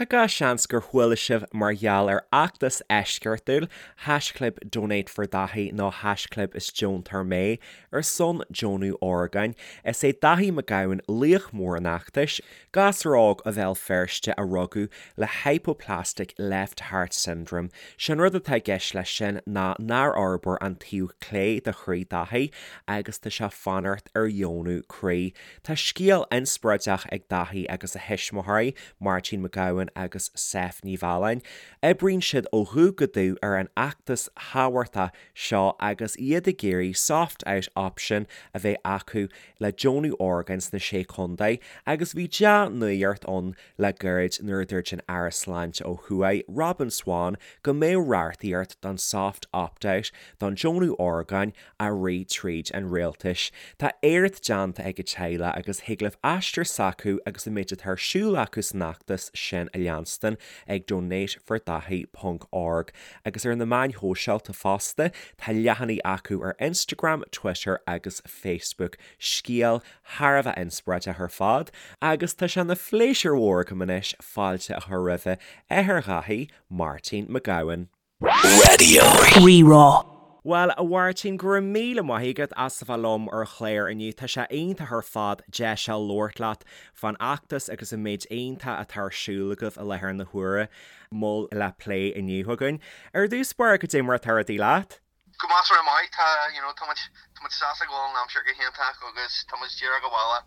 Tá gach seans gur chuala sibh mar gheall ar fheachtas eisceachtúil, haischlib DonateForDaithí nó haischlib is deontóir mé, ar son deonú orgáin. Is é Daithí Mac Gabhann laoch mór an fheachtais, gasúr óg ó Bhéal Feirste a rugadh le Hypoplastic Left Heart Syndrome. Sé'n rud atá i gceist leis sin ná nár fhorbair an taobh clé de chroí Daithí agus tá sé fanacht ar dheonú croí. Tá scéal inspioráideach ag Daithí agus a thuismitheoirí, Máirtín Mac Gabhann agus Seph Ní Mhealláin. Oibríonn siad ó dhubh go dubh ar an fheachtas thábhachtach seo agus iad ag iarraidh soft out option a bheith acu le deonú orgáin sna Sé Chontae agus bhí dea-nuacht ann le gairid nuair a dúirt an Aire Sláinte ó thuaidh, Robin Swann, go mbeadh reachtaíocht don soft opt out don deonú orgáin á rith tríd an rialtais. Tá éacht déanta ag an teaghlach agus thig libh aistear s'acu agus an méid atá ar siúl acu san fheachtas sin a leanstan ag donatefordaithí ponc org agus ar na meáin shóisialta fosta. Tá leathanaigh acu ar Instagram, Twitter agus Facebook. Scéal thar a bheith inspioráideach ar fad agus tá sé ina phléisiúr mhór agam anois fáilte a chur roimhe athair Dhaithí, Máirtín Mac Gabhann. Raidió Rí-Rá. Bhuel, a Mháirtín, go raibh míle maith agat as a bheith liom ar an chlár inniu. Tá sé iontach ar fad deis a labhairt leat fán fheachtas agus an méid iontach atá ar siúl agaibh i láthair na huaire. Moll le plé inniu againn. Ar dtús báire, cad é mar atá rudaí leat? Go measartha maith. Tá, you know, tá muid, tá muid sásta go bhfuil an aimsir go hiontach agus tá muid díreach abhaile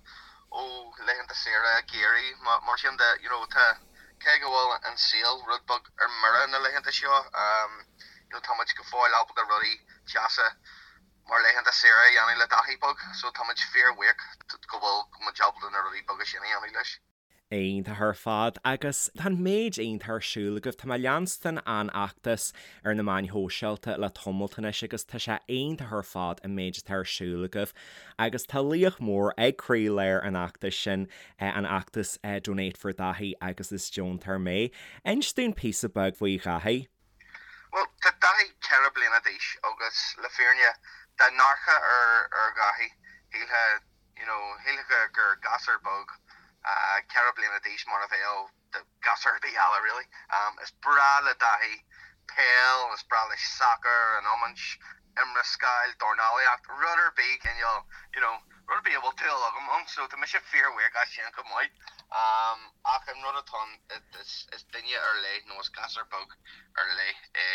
ó laethanta saoire geimhridh. Mar sin de, you know, tá, cé go bhfuil an saol rud beag ar mire na laethanta seo, you know, tá muid go fóill ábalta rudaí deasa mar laethanta saoire a dhéanamh le Daithí beag, so tá muid fíorbhuíoch go bhfuil muid ábalta na rudaí beaga sin a dhéanamh leis. Iontach ar fad agus tá an méid iontach ar siúl agaibh. Tá mé ag leanstan an fheachtas ar na meáin shóisialta le tamalt anois agus tá sé iontach ar fad an méid atá ar siúl agaibh agus tá laoch mór ag croílár an fheachtais sin, an fheachtas Donate for Daithí agus is deontóir mé. Inis dúinn píosa beag faoi Dhaithí. Bhuel, tá Daithí 4 bliana d'aois agus le fírinne, dá n-amharcfá ar Dhaithí, shílfeá, you know, shílfeá gur gasúr beag 4 bliana d'aois mar a bheadh gasúr ar bith eile really. Is breá le Daithí peil, is breá leis sacar, an iomáint, iomrascáil, dornálaíocht, rud ar bith cineál, you know, rud ar bith a bhfuil dúil agam ann, so tá mise fíorbhuíoch as sin chomh maith. Ach an rud atá ann, is duine ar leith nó is gasúr beag ar leith é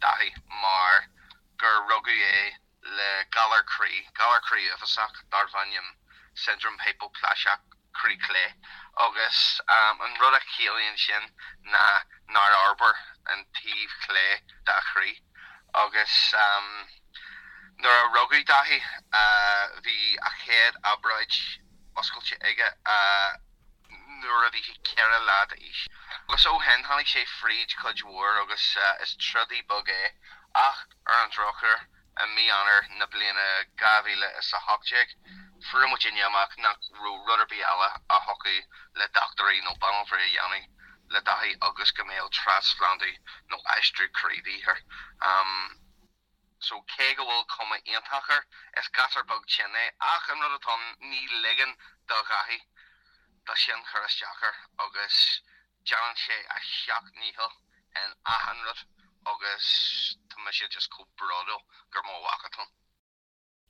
Daithí mar gur rugadh é le galar croí, galar croí uafásach darbh ainm Siondróm Hipeaplaiseach Croí Clé, agus an rud a chiallaíonn sin ná nár fhorbair an taobh clé dá chroí. Agus nuair a rugadh Daithí, bhí a chéad obráid oscailte aige nuair a bhí sé 4 lá d'aois. Agus ó shin, tháinig sé fríd cuid mhór agus is trodaí beag é ach ar an drochuair, i mí Eanáir na bliana 2018, fuair muidinne amach nach raibh rud ar bith eile a thiocfadh le dochtúirí nó banaltraí a dhéanamh le Daithí agus go mbeadh trasphlandú nó aistriú croí de dhíth air. So cé go bhfuil cuma iontach air, is gasúr beag tinn é ach an rud atá ann, ní ligeann do Dhaithí do sin cur isteach air agus déanann sé a sheacht ndícheall in achan rud agus tá mise just chomh bródúil gur mo mhac atá ann.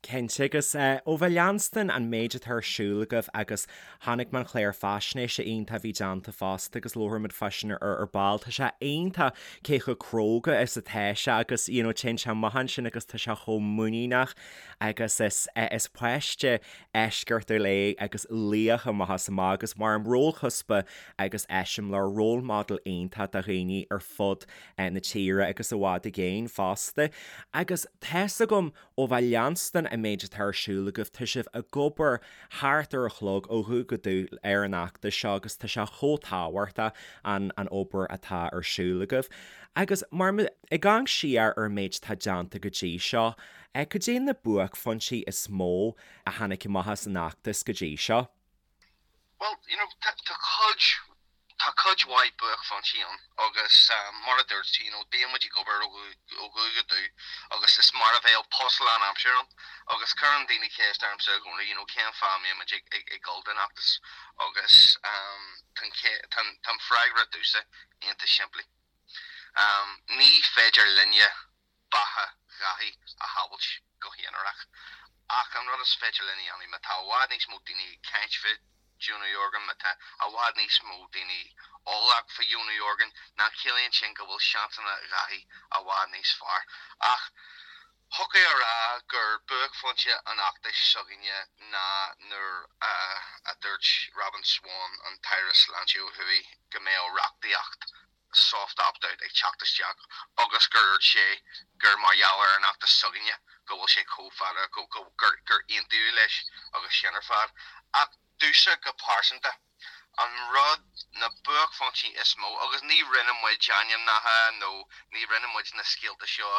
Cinnte, agus ó bheith ag leanstan an méid atá ar siúl agaibh agus chonaic mé an chlár faisnéise iontach a bhí déanta fosta agus labhróimid fá sin ar ar ball, tá sé iontach cé chomh cróga is atá sé agus you know téann sé amach ansin agus tá sé chomh muiníneach agus is is páiste eisceachtúil é agus laoch amach is amach agus mar rólchuspa agus eiseamláir, role model iontach do dhaoine ar fud na tíre agus i bhfad i gcéin fosta. Agus tá's agam ó bheith ag leanstan an méid atá ar siúl agaibh, tá sibh ag obair thart ar an chlog ó dhubh go dubh ar an fheachtas seo agus tá sé chomh tábhachtach an an obair atá ar siúl agaibh. Agus mar ag amharc siar ar an méid atá déanta go dtí seo, cad é na buaicphointí is mó a tháinig amach as an fheachtas go dtí seo? Bhuel, you know, tá, tá cuid, tá cuid. cuid mhaith buaicphointí ann agus mar a dúirt tú, you know, bíonn muid ag obair ó dhubh go dubh agus is mar a bheadh post lánaimseartha ann agus cuireann daoine ceist ormsa i gcónaí, you know, cén fáth a mbíonn muid ag, ag, ag dul don fheachtas agus tá an, tá an freagra domhsa iontach simplí. Ní féidir linne beatha Dhaithí a shábhailt go haonarach. Ach an rud is féidir linn a dhéanamh, má tá i bhfad níos mó daoine ag caint fá dheonú orgán, má tá i bhfad níos mó daoine eolach fá dheonú orgán, ná ciallaíonn sin go bhfuil seansanna Dhaithí i bhfad níos fearr. Ach thiocfadh a rá gur buaicphointe an fheachtais s'againne ná nuair a dúirt Robin Swann, an tAire Sláinte ó thuaidh, go mbeadh reachtaíocht soft opt-out ag teacht isteach agus gur dhúirt sé gur mar gheall ar an fheachtas s'againne go bhfuil sé chomh fada, go, go, gur, gur aontaíodh leis agus sin ar fad. Ach domhsa go pearsanta, an rud, na buaicphointí is mó, agus ní rinne muid ainmneacha nó ní rinne muid na scéalta seo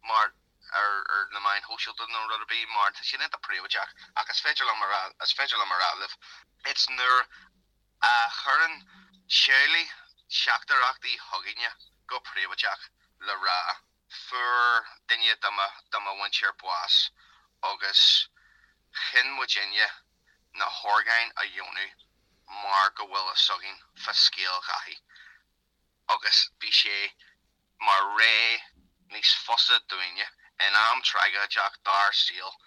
mar ar, ar na meáin shóisialta nó rud ar bith mar tá siad iontach príobháideach ach is féidir liom a rá, is féidir liom a rá libh, it's nuair a chuireann teaghlaigh teachtaireachtaí chugainne go príobháideach le rá fuair duine de mo de mo mhuintir bás agus chinn muidinne na horgáin a dheonú mar go bhfuil fhios againn fá scéal Dhaithí agus bhí sé mar ré níos fusa dúinne in am tragóideach dár saol.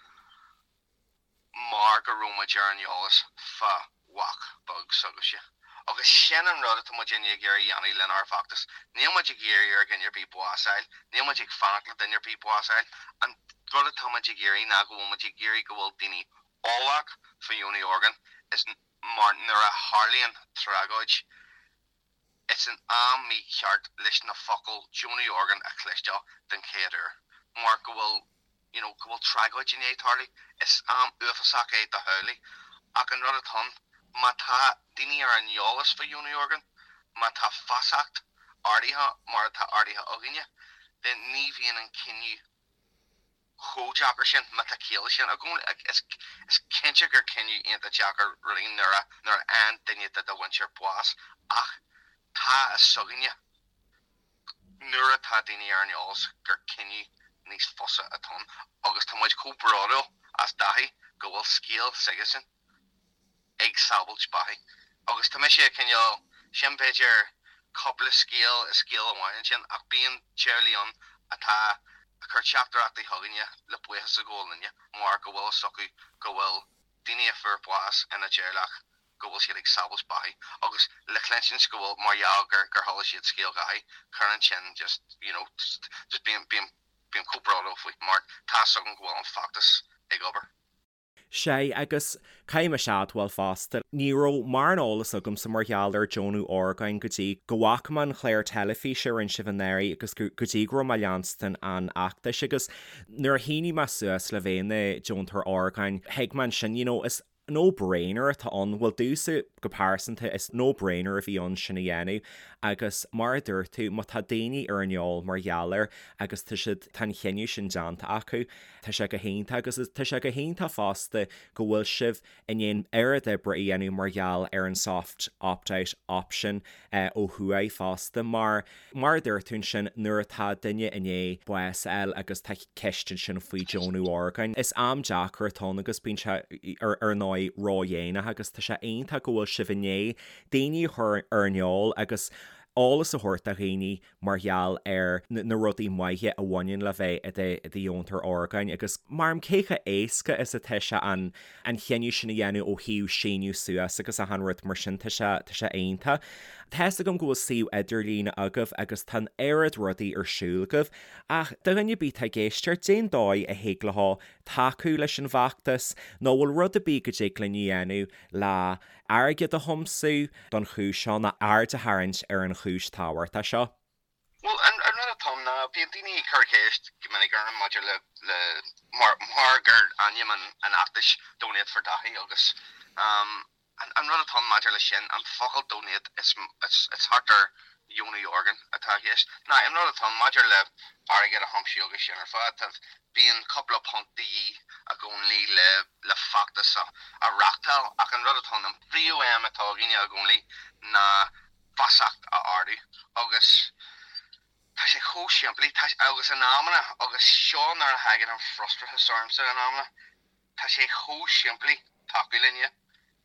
mar go raibh muid ar an eolas fá mhac beag s'agaibhse. Agus sin an rud atá muidinne ag iarraidh a dhéanamh lenár bhfeachtas. Níl muid ag iarraidh ar dhuine ar bith bás a fháil, níl muid ag fanacht le duine ar bith bás a fháil. An rud atá muid ag iarraidh ná go bhfuil muid ag iarraidh go bhfuil daoine eolach faoi dheonú orgán is mar nuair a tharlaíonn tragóid, Is an am mícheart leis na focail deonú orgán a chloisteáil den chéad uair, mar go bhfuil, you know, go bhfuil tragóid i ndiaidh tarlú. Is am uafásach é do theaghlaigh. Ach an rud atá ann, má tá daoine ar an eolas fá dheonú orgán, má tá feasacht ardaithe mar atá ardaithe againne, then ní bhíonn an cinneadh chomh deacair sin, má tá ciall leis sin. Is cinnte gur cinneadh iontach deacair rudaí nuair a nuair a fhaigheann duine de do mhuintir bás ach tá a fhios againne nuair atá daoine ar an eolas gur cinneadh níos fusa atá ann agus tá muid chomh bródúil as Dáithí go bhfuil scéal s'aigesean. ag sábhailt beathaí. Agus tá mise cineál, sin b'fhéidir cúpla scéal i scéal amháin ansin, ach bíonn teaghlaigh ann atá ag cur teachtaireachtaí chugainne le buíochas a ghabháil linne mar go bhfuil fhios acu go bhfuil daoine a fuair bás ina dteaghlach go bhfuil siad ag sábhailt beathaí agus le cluinstin go bhfuil mar gheall gur gur chuala siad scéal Dháithí, cuireann sin just you know just bím bím bím chomh bródúil faoi mar tá fhios agam go bhfuil an feachtas ag obair. Sea, agus caithfidh mise a admháil fosta, ní raibh mórán eolas agamsa mar gheall ar deonú orgáin go dtí go bhfaca mé an chlár teilifíse a rinne sibh anuraidh agus go dtí go raibh mé ag leanstan an fheachtais agus nuair a shínigh mé suas le bheith i mo dheontóir orgáin, thuig mé ansin, you know, is no-brainer atá ann, bhuel domhsa go pearsanta, is no-brainer a bhí ann sin a dhéanamh agus mar a dúirt tú, má tá daoine ar an eol mar gheall air agus tá siad, tá an chinneadh sin déanta acu, Tá sé go hiontach agus tá sé go hiontach fosta go bhfuil sibh i ndiaidh an oiread oibre a dhéanamh mar gheall ar an soft opt-out option ó thuaidh fosta mar, mar a dúirt tú ansin, nuair atá duine i ndiaidh bás a fháil agus tá ceist ansin faoi deonú orgáin, is am deacair atá ann agus bíonn sé ar ar ndóigh ródhéanach agus tá sé iontach go bhfuil sibh i ndiaidh daoine a chur ar an eol agus eolas a thabhairt do dhaoine mar gheall ar na rudaí maithe a bhaineann le bheith i do dheontóir orgáin agus mar cé chomh éasca is atá sé an an chinneadh sin a dhéanamh ó thaobh síniú suas agus achan rud mar sin tá sé tá sé iontach. Tá fhios agam go bhfuil suíomh idirlíne agaibh agus tá an oiread rudaí ar siúl agaibh ach do dhuine ar bith atá ag éisteacht cén dóigh a thig leo tacú leis an bhfeachtas nó bhfuil rud ar bith go dtig linn a dhéanamh le airgead a thiomsú don chúis seo nó aird a tharraingt ar an chúis tábhachtach seo. Bhuel, an rud atá ann ná, bíonn daoine ag cur ceist go minic orm maidir le, le, mar, mar gur ainm an, an fheachtais Donate for Daithí agus an rud atá ann maidir leis sin, an focal donate, is, is, is thart ar dheonú orgán atá i gceist. Now, an rud atá ann maidir le airgead a thiomsú agus sin ar fad, tá, bíonn cúpla punt de dhíth i gcónaí le, le feachtas a reáchtáil ach an rud atá ann, an príomhaidhm atá againne i gcónaí ná feasacht. Tá, agus in amanna, agus seo nuair a thagann an frustrachas ormsa in amanna, tá sé chomh simplí tacú linne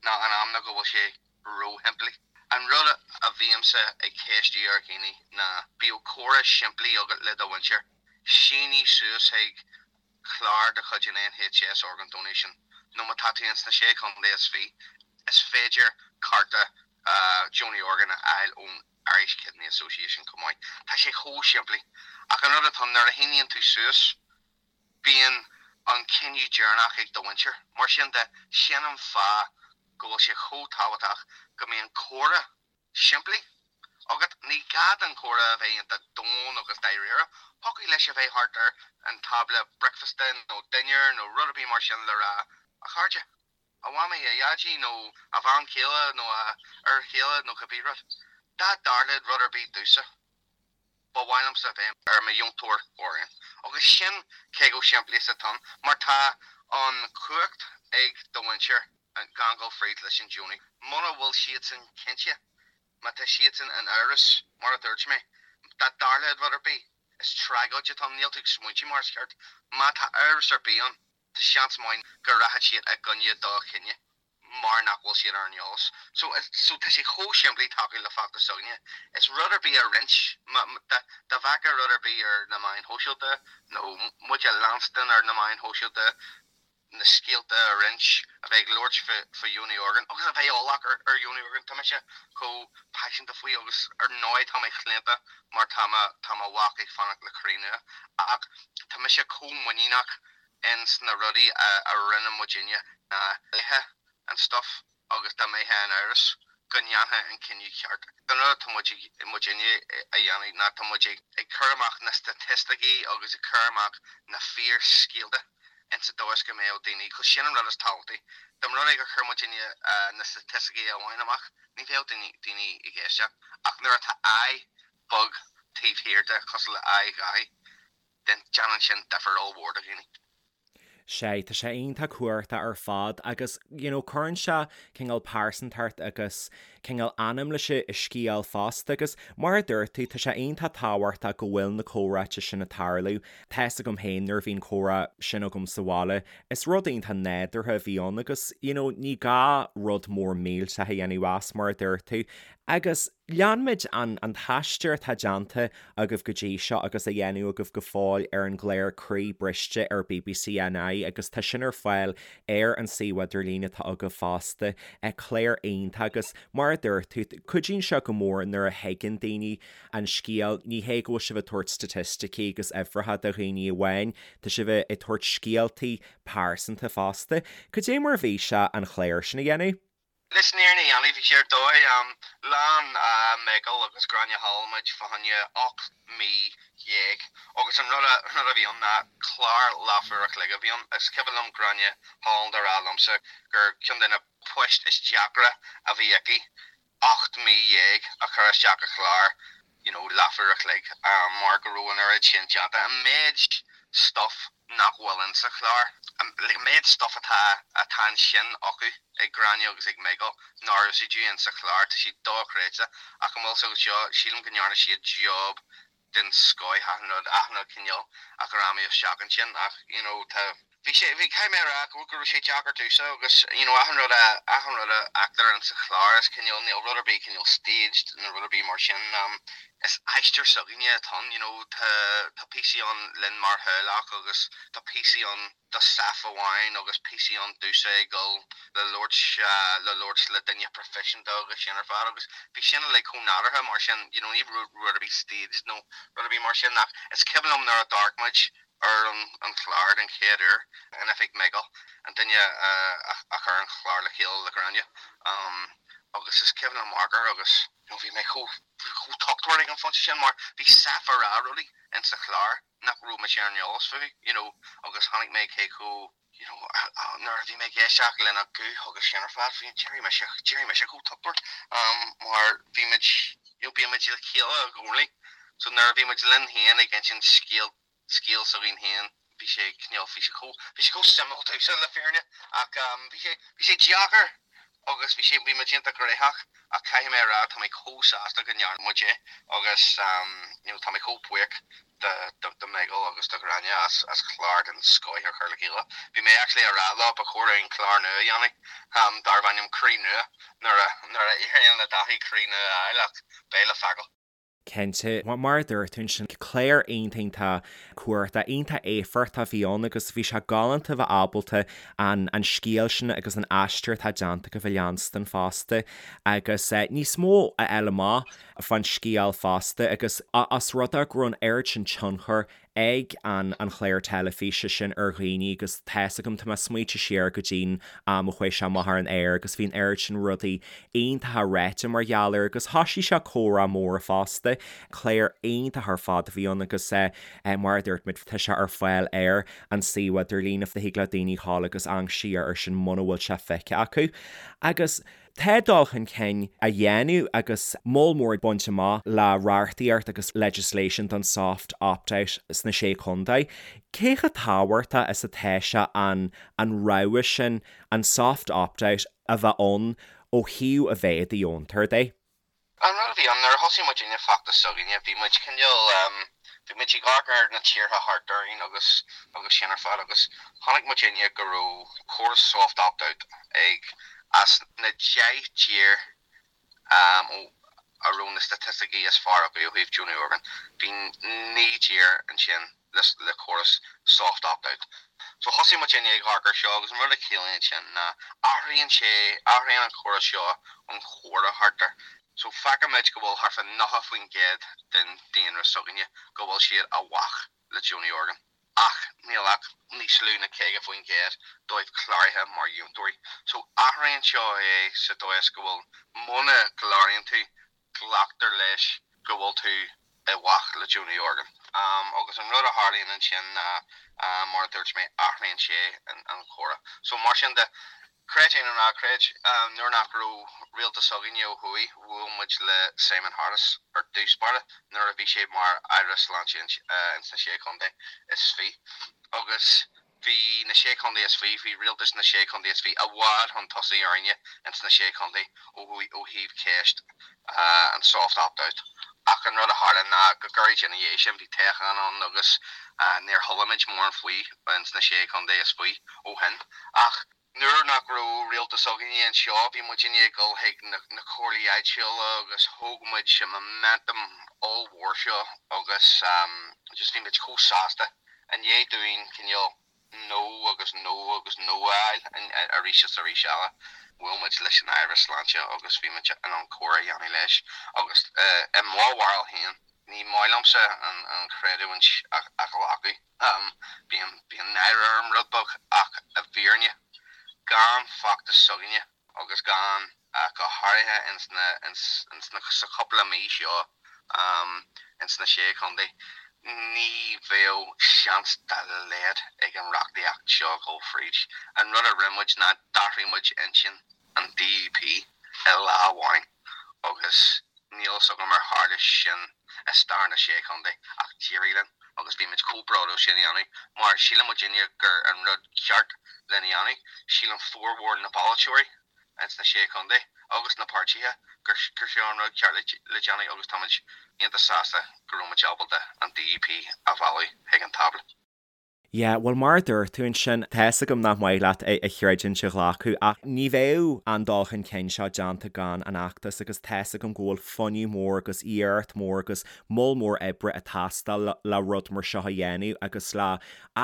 ná in amanna go bhfuil sé ró-shimplí. An rud a bhímse ag ceistiú ar dhaoine ná bíodh comhrá simplí agat le do mhuintir, sínigh suas chuig clár de chuid an NHS Organ Donation nó má tá tú ins na Sé Chontae is Fiche, is féidir cárta deonaí orgán a fháil ón Irish Kidney Association chomh maith. Tá sé chomh simplí. Ach an rud atá ann, nuair a shíníonn tú suas, bíonn an cinneadh deireanach ag do mhuintir. Mar sin de, sin an fáth go bhfuil sé chomh tábhachtach go mbíonn comhrá simplí agat. Ní gá don chomhrá a bheith iontach domhain agus dáiríre. Thiocfadh leis a bheith thart ar an tábla bricfeasta nó dinnéir nó rud ar bith mar sin le rá, 'A chairde, a mhamaí, a dhaidí nó a bhean chéile nó a fhear chéile nó cibé rud. Dá dtarlódh rud ar bith domhsa, ba mhaith liomsa a bheith ar mo dheontóir orgán. Agus sin cé chomh simplí is atá ann, mar tá an chumhacht ag do mhuintir gan dul fríd leis an deonú. Muna bhfuil siadsan cinnte, má tá siadsan in amhras, mar a dúirt mé, dá dtarlódh rud ar bith, is tragóid atá ann, níl tú ag smaointiú mar is ceart. Má tá amhras ar bith ann, tá seans maith go rachaidh siad i gcoinne do chinneadh mar nach bhfuil siad ar an eolas. So, so tá sé chomh simplí tacú le feachtas s'againne. Is rud ar bith a roinnt, má, dá, dá bhfeicfeá rud ar bith ar na meáin shóisialta nó muid a leanstan ar na meáin shóisialta, na scéalta a roinnt, a bheith ag labhairt fá, fá dheonú orgán agus a bheith eolach ar, ar dheonú orgán. Tá mise chomh paiseanta faoi agus ar ndóigh tá mé claonta mar tá mo, tá mo mhac ag fanacht le croí nua ach tá mise chomh muiníneach ins na rudaí a rinne muidinne na laetha an stuff agus dá mbeifeá in amhras go ndéanfá an cinneadh ceart. An rud atá muid muidinne a dhéanamh ná tá muid ag cur amach na staitisticí agus ag cur amach na fíorscéalta ins an dóigh is go mbeadh daoine, cos sin an rud is tábhachtaí. Dá mba rud é gur chuir muidinne na staitisticí amháin amach ní bheadh daoine daoine ag éisteacht ach nuair atá aghaidh bheag taobh thiar de cosúil le aghaidh Dhaithí then déanann sin difear ollmhór do dhaoine. Sea, tá sé iontach cumhachtach ar fad agus you know cuireann sé cineál pearsantacht agus cineál anam leis an scéal fosta agus mar a dúirt tú tá sé iontach tábhachtach go bhfuil na comhráite sin ag tarlú. Tá fhios agam féin nuair a bhí an comhrá sin agam sa bhaile is rud iontach nádúrtha a bhí ann agus you know ní gá rud mór millteach a dhéanamh as mar a dúirt tú agus Lean muid an an t-aistear atá déanta agaibh go dtí seo agus á dhéanamh agaibh go fóill ar an gclár Croí Briste ar bbc NI agus tá sin ar fáil ar an suíomh idirlín atá agaibh fosta. Clár iontach agus mar a dúirt tú, cuidíonn sé go mór nuair a thuigeann daoine an scéal, ní hé go bhfuil sibh ag tabhairt staitisticí agus uimhreacha do dhaoine amháin, tá sibh ag tabhairt scéaltaí pearsanta fosta. Cad é mar a bhí sé an clár sin a dhéanamh? Leis an fhírinne a dhéanamh, bhí sé ar dóigh. Lean Michael agus Gráinne Holland muid fá choinne 18 mí agus an rud a bhí ann ná clár leathuair a chloig a bhí ann. Is cuimhin liom Gráinne Holland a rá liomsa gur ceann de na poist is deacra a bhí aici 18 mí a chur isteach i chlár you know leathuair a chloig mar go raibh an oiread sin déanta. An méid stuff nach bhfuil in sa chlár, like an méid stuff atá atá ansin acu ag Gráinne agus ag Michael nár úsáideadh in sa chlár, tá sé dochreidte. Ach an bhfuil fhios agat seo, sílim go ndearna siad job den scoith achan rud, achan rud cineál a ghreamú isteach ansin ach you know tá, bhí sé, bhí, caithfidh mé a rá go raibh sé deacair domhsa agus you know achan rud a, achan rud a fheictear in sa chlár is cineál, níl rud ar bith cineál staged nó rud ar bith mar sin, is aistear s'againne atá ann, you know tá, tá píosaí ann linn mar theaghlach agus tá píosaí ann do Seph amháin agus píosaí ann domhsa ag dul le labhairt le labhairt le duine proifisiúnta agus sin ar fad agus bhí sin uilig chomh nádúrtha mar sin you know ní raibh rud ar bith staged nó rud ar bith mar sin ach is cuimhin liom nuair a d'amharc muid ar an an chlár den chéad uair in oifig Michael an duine a a chuir an chlár le chéile le Gráinne agus is cuimhin liom amharc air agus you know bhí mé chomh chomh tochtmhar ag an phointe sin mar bhí Seph ag rá rudaí insa chlár nach raibh mise ar an eolas fúthu, you know, agus chonaic mé cé chomh, you know, nuair a bhí mé ag éisteacht lena guth agus sin ar fad, bhí, d'éirigh mise, d'éirigh mise chomh tochtmhar, mar bhí muid, you know, bíonn muid le chéile i gcónaí, so nuair a bhí muid linn féin ag insint scéal, scéal s'againn féin, bhí sé cineál, bhí sé chomh, bhí sé chomh suimiúil domhsa le fírinne, ach bhí sé, bhí sé deacair. Agus bhí sé, bhí muid iontach gnóthach ach caithfidh mé a rá tá mé chomh sásta go ndearna muid é agus you know tá mé chomh buíoch do do do Mhichael agus do Ghráinne as as clár den scoith a chur le chéile. Bhí mé actually a rá leo ba chóir dúinn clár nua a dhéanamh darb ainm Croí Nua nuair a nuair a éiríonn le Dáithí croí nua a fháil ach beidh le feiceáil. Cinnte, mar a dúirt tú ansin, clár iontach iontach cumhachtach, iontach éifeachtach a bhí ann agus bhí sé galánta bheith ábalta an an scéal sin agus an aistear atá déanta agaibh a leanstan fosta agus níos mó a fháil amach fán scéal fosta agus os rud é go raibh an oiread sin tionchair ag an an chlár teilifíse sin ar dhaoine agus tá's agam, tá mé ag smaoitiú siar go dtí'n am a chuaigh sé amach ar an aer agus bhí an oiread sin rudaí iontacha ráite mar gheall air agus thoisigh sé comhrá mór fosta. Clár iontach ar fad a bhí ann agus mar a dúirt muid tá sé ar fáil ar an suíomh idirlín if thig le daoine dhul agus amharc siar air sin muna bhfuil sé feicthe acu. Agus. Tá dul chun cinn á dhéanamh agus moll mór bainte amach le reachtaíocht agus legislation don soft opt-out sna Sé Chontae. Cé chomh tábhachtach is atá sé an an rogha sin, an soft opt-out, a bheith ann ó thaobh a bheith i do dheontóir de? An rud a bhí ann, nuair a thosaigh muidinne feachtas s'againne, bhí muid cineál, bhí muid ag amharc ar na tíortha thart orainn agus agus sin ar fad agus chonaic muidinne go raibh córas soft opt-out ag as na 10 dtír a raibh na staitisticí is fearr acu ó thaobh deonú orgán, bhí 9 dtír ansin le córas soft opt-out. So thosaigh muidinne ag amharc ar seo agus an rud a chiallaíonn sin ná athraíonn sé, athraíonn an córas seo an chomhrá thart air. So feicimid go bhfuil thart fá 90% den daonra s'againne go bhfuil siad i bhfách le deonú orgán ach níl ach níos lú ná 50% dóibh cláraithe mar dheontóirí. So athraíonn seo é sa dóigh is go bhfuil muna gcláraíonn tú glactar leis go bhfuil tú i bhfách le deonú orgán. Agus an rud a tharlaíonn ansin ná, mar a dúirt mé, athraíonn sé an comhrá. So mar sin de, creid é nó ná creid, nuair nach raibh rialtas againne ó thuaidh, bhuail muid le Simon Harris ar dtús báire nuair a bhí sé mar Aire Sláinte ins na Sé Chontae is Fiche. Agus Bhí na Sé Chontae is Fiche, bhí rialtas na Sé Chontae is Fiche i bhfad chun tosaigh orainne ins na Sé Chontae ó thuaidh ó thaobh ceist an soft opt-out. Ach an rud a tharla ná go gairid ina dhiaidh sin bhí toghchán ann agus níor chuala muid mórán faoi ins na Sé Chontae is Fiche ó shin. Ach nuair nach raibh rialtas againne anseo bhí muidinne ag dul chuig na comhairlí áitiúla agus thóg muid an momentum ollmhór seo agus just bhí muid chomh sásta i ndiaidh dúinn cineál no agus no agus no a fháil arís is arís eile. Bhuail muid leis an Aire Sláinte agus bhí muid in ann comhrá a dhéanamh leis agus i mo bharúil féin ní maith liomsa an chreidiúint a ghlacadh. Bíonn bíonn náire orm rud beag ach i bhfírinne gan feachtas s'againne agus gan go háirithe ins na ins ins na sa chúpla mí seo ins na Sé Chontae ní bheadh seans dá laghad ag an reachtaíocht seo dhul fríd. An rud a rinne muid ná d'athraigh muid intinn an DUP i lá amháin agus níl fhios agam ar tharla sin i stair na Sé Chontae ach d'éirigh linn agus bhí muid chomh bródúil sin a dhéanamh mar síleann muidinne gur an rud ceart lena dhéanamh. Síleann formhór na bpolaiteoirí ins na Sé Chontae agus na páirtithe gur seo an rud ceart le déanamh agus táimid iontach sásta go raibh muid ábalta an DUP a mhealladh chuig an tábla. Yeah, bhuel mar a dúirt tú ansin, tá fhios agam nach maith leat a chreidiúint a ghlacadh ach ní bheadh an dul chun cinn seo déanta gan an fheachtas agus tá fhios agam go bhfuil fuinneamh mór agus iarracht mór agus moll mór oibre ag teastáil le rud mar seo a dhéanamh agus le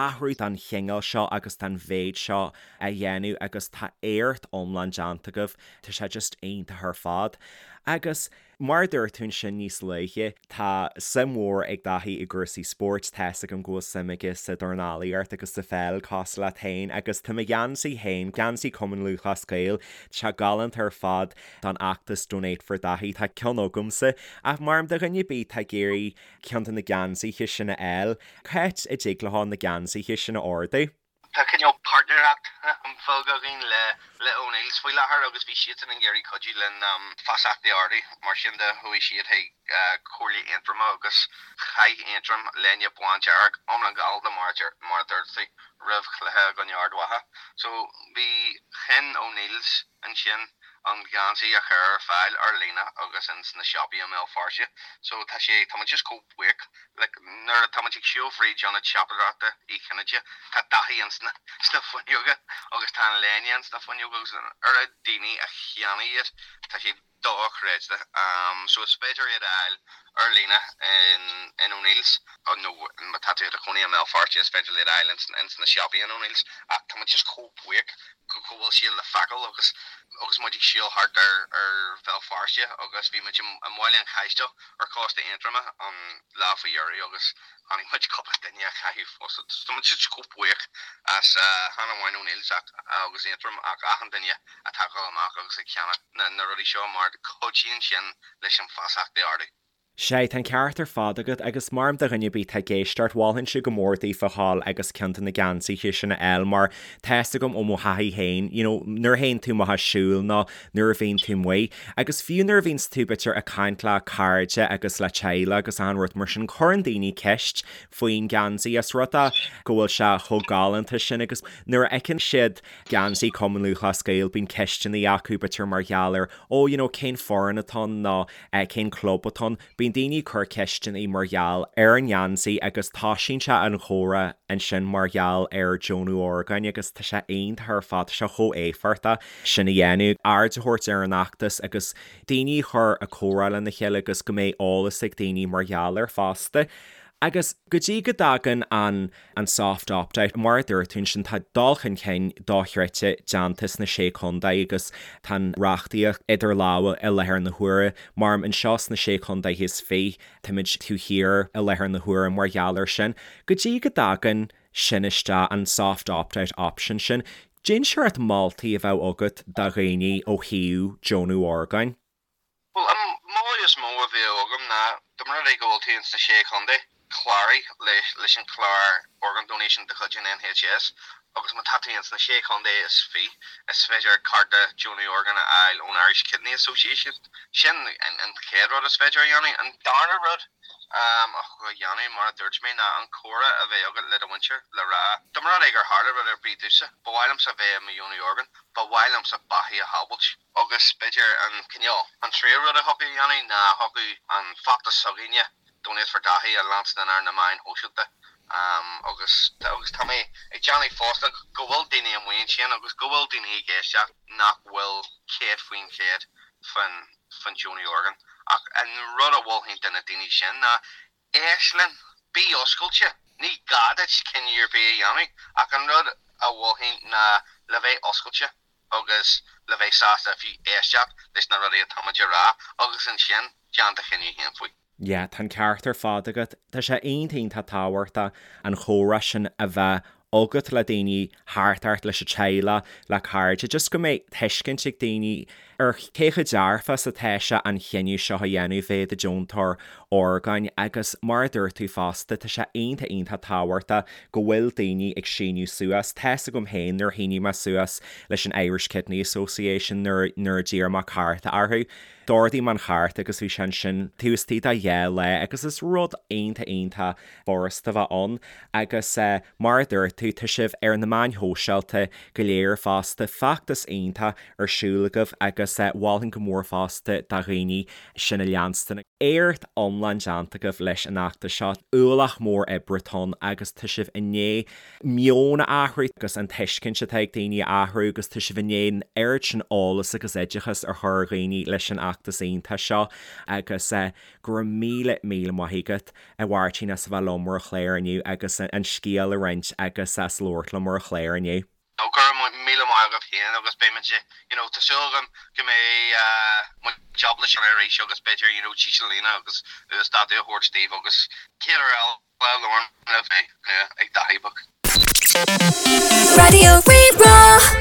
athrú den chineál seo agus den mhéid seo a dhéanamh agus tá éacht iomlán déanta agaibh, tá sé just iontach ar fad. Agus. Mar a dúirt tú ansin níos luaithe, tá suim mhór ag Daithí i gcúrsaí spóirt, tá fhios agam go bhfuil suim aige sa dornálaíocht agus sa pheil cosúil leat féin agus tá mo gheansaí féin, geansaí Chumann Lúthchleas Gael, tá sé galánta ar fad don fheachtas Donate for Daithí, tá ceann agamsa ach mar do dhuine ar bith atá ag iarraidh ceann de na geansaithe sin a fháil, cá háit a dtig leo na geansaithe sin a ordú? Tá cineál páirtnéireacht bheag againn le le O'Neills faoi láthair agus bhí siadsan ag iarraidh cuidiú linn feasacht a ardú. Mar sin de, chuaigh siad chuig Comhairle Aontroma agus chaith Aontroim léine bándearg, iomlán galánta mar mar a dúirt tú, roimh chluiche i gcoinne Ard Mhacha. So bhí chinn O'Neills ansin. an geansaí a chur ar fáil ar líne agus ins na siopaí i mBéal Feirste. So tá sé, tá muid just chomh buíoch. Like nuair atá muid ag siúl fríd ionad siopadóireachta Uí Chinnéide, tá Daithí ins na, sna fuinneoga agus tá an léine ins na fuinneoga agus an oiread daoine a cheannaigh iad, tá sé dochreidte. So is féidir iad a fháil ar líne in, in O'Neill's nó má tá tú i do chónaí i mBéal Feirste is féidir iad a fháil ins, ins na siopaí in O'Neill's ach tá muid just chomh buíoch go go bhfuil siad le feiceáil agus agus muid ag siúl thart ar ar Bhéal Feirste agus bhí muid i mBaile an Chaistil ar chósta Aontroma an lá faoi dheireadh agus chonaic muid cúpla duine á chaitheamh fosta. Tá muid just chomh buíoch as chan amháin O'Neill's ach agus Aontroim ach achan duine atá ag dul amach agus ag ceannach na rudaí seo mar cuidíonn sin leis an feasacht a ardú. Sea, tá an ceart ar fad agat, agus mar do dhuine ar bith atá ag éisteacht, mholfainnse go mór daofa dhul agus ceann de na geansaithe sin a fháil mar tá fhios agam ó mo thaithí féin, you know, nuair a théann tú amach ag siúl nó nuair a bhíonn tú amuigh, agus fiú nuair a bhíonns tú b'fhéidir ag caint le cairde agus le teaghlaigh agus achan rud mar sin, cuireann daoine ceist faoin gheansaí as rud é go bhfuil sé chomh galánta sin agus nuair a fheiceann siad geansaí Cumann Lúthchleas Gael bíonn ceisteanna acu b'fhéidir mar gheall ar oh you know cén foireann atá ann nó cén club atá ann. Bíonn daoine ag cur ceisteanna mar gheall ar an ngeansaí agus toisíonn sé an chomhrá ansin mar gheall ar deonú orgáin agus tá sé iontach ar fad, tá sé chomh éifeachtach sin a dhéanamh, aird a thabhairt ar an fheachtas agus daoine a chur ag comhrá lena chéile agus go mbeidh eolas ag daoine mar gheall air fosta. Agus go dtí go dtagann an an soft opt-out, mar a dúirt tú ansin, tá dul chun cinn dochreidte déanta sna Sé Chontae agus tá an reachtaíocht idir lámha i láthair na huaire. Mar anseo sna Sé Chontae is Fiche, táimid taobh thiar i láthair na huaire mar gheall air sin. Go dtí go dtagann sin isteach, an soft opt-out option sin, cén seort moltaí a bheadh agat do dhaoine ó thaobh deonú orgáin. Bhuel, an moladh is mó a bheadh agam ná, dá mba rud é go bhfuil tú ins na Sé Chontae, cláraigh leis an chlár Organ Donation de chuid an NHS agus má tá tú ins na Sé Chontae is Fiche, is féidir cárta deonú orgán a fháil ón Irish Kidney Association. Sin an chéad rud is féidir a dhéanamh. An darna rud a dhéanamh, mar a dúirt mé, ná an comhrá a bheith agat le do mhuintir le rá, dá mba rud é gur tharla rud ar bith domhsa, ba mhaith liomsa bheith i mo dheonaí orgán, ba mhaith liomsa beathaí a shábhailt. Agus b'fhéidir an cineál, an tríú rud a thiocfadh a dhéanamh ná thiocfadh an feachtas s'againne, Donate for Daithí, a leanstan ar na meáin shóisialta. Agus, agus tá mé ag déanamh fosta go bhfuil daoine amuigh ansin agus go bhfuil daoine ag éisteacht nach bhfuil 100% faoin, faoin deonú orgán. Ach an rud a mholfainn do na daoine sin ná éist linn, bí oscailte, ní gá duit cinneadh ar bith a dhéanamh ach an rud a mholfainn ná le bheith oscailte agus le bheith sásta fiú éisteacht leis na rudaí atáimid a rá agus ansin déan do chinneadh féin faoi. Yeah, tá an ceart ar fad agat. Tá sé iontach iontach tábhachtach an chomhrá sin a bheith agat le daoine thart ort, leis an teaghlach, le cairde, just go mbeidh tuiscint ag daoine ar cé chomh dearfach is atá sé an chinneadh seo a dhéanamh bheith i do deontóir orgáin agus mar a dúirt tú fosta, tá sé iontach iontach tábhachtach go bhfuil daoine ag síniú suas. Tá's agam féin nuair a shínigh mé suas leis an Irish Kidney Association nuair nuair a d'iarr mé cárta orthu, d'ordaigh mé an chárta agus bhí sé ansin taobh istigh de dhá lá agus is rud iontach iontach furasta a bheith ann agus mar a dúirt tú, tá sibh ar na meáin shóisialta go léir fosta, feachtas iontach ar siúl agaibh agus mholfainn go mór fosta do dhaoine sin a leanstan. Éacht iomlán déanta agaibh leis an fheachtas seo, ualach mór oibre atá ann agus tá sibh i ndiaidh meon a athrú agus an tuiscint atá ag daoine a athrú agus tá sibh i ndiaidh an oiread sin eolas agus oideachas a chur ar dhaoine leis an fheachtas iontach seo agus go raibh míle míle maith agat a Mháirtín as a bheith liom ar an chlár inniu agus an scéal a roinnt agus as labhairt liom ar an chlár inniu. No, go raibh míle maith agat féin agus beidh muid, you know, tá súil agam go mbeidh muid ábalta sin arís agus b'fhéidir, you know, dísealaíona agus uasdátú a thabhairt daoibh agus céad uair eile labhrann libh mé ag Daithí Beag. Raidió Rí-Rá.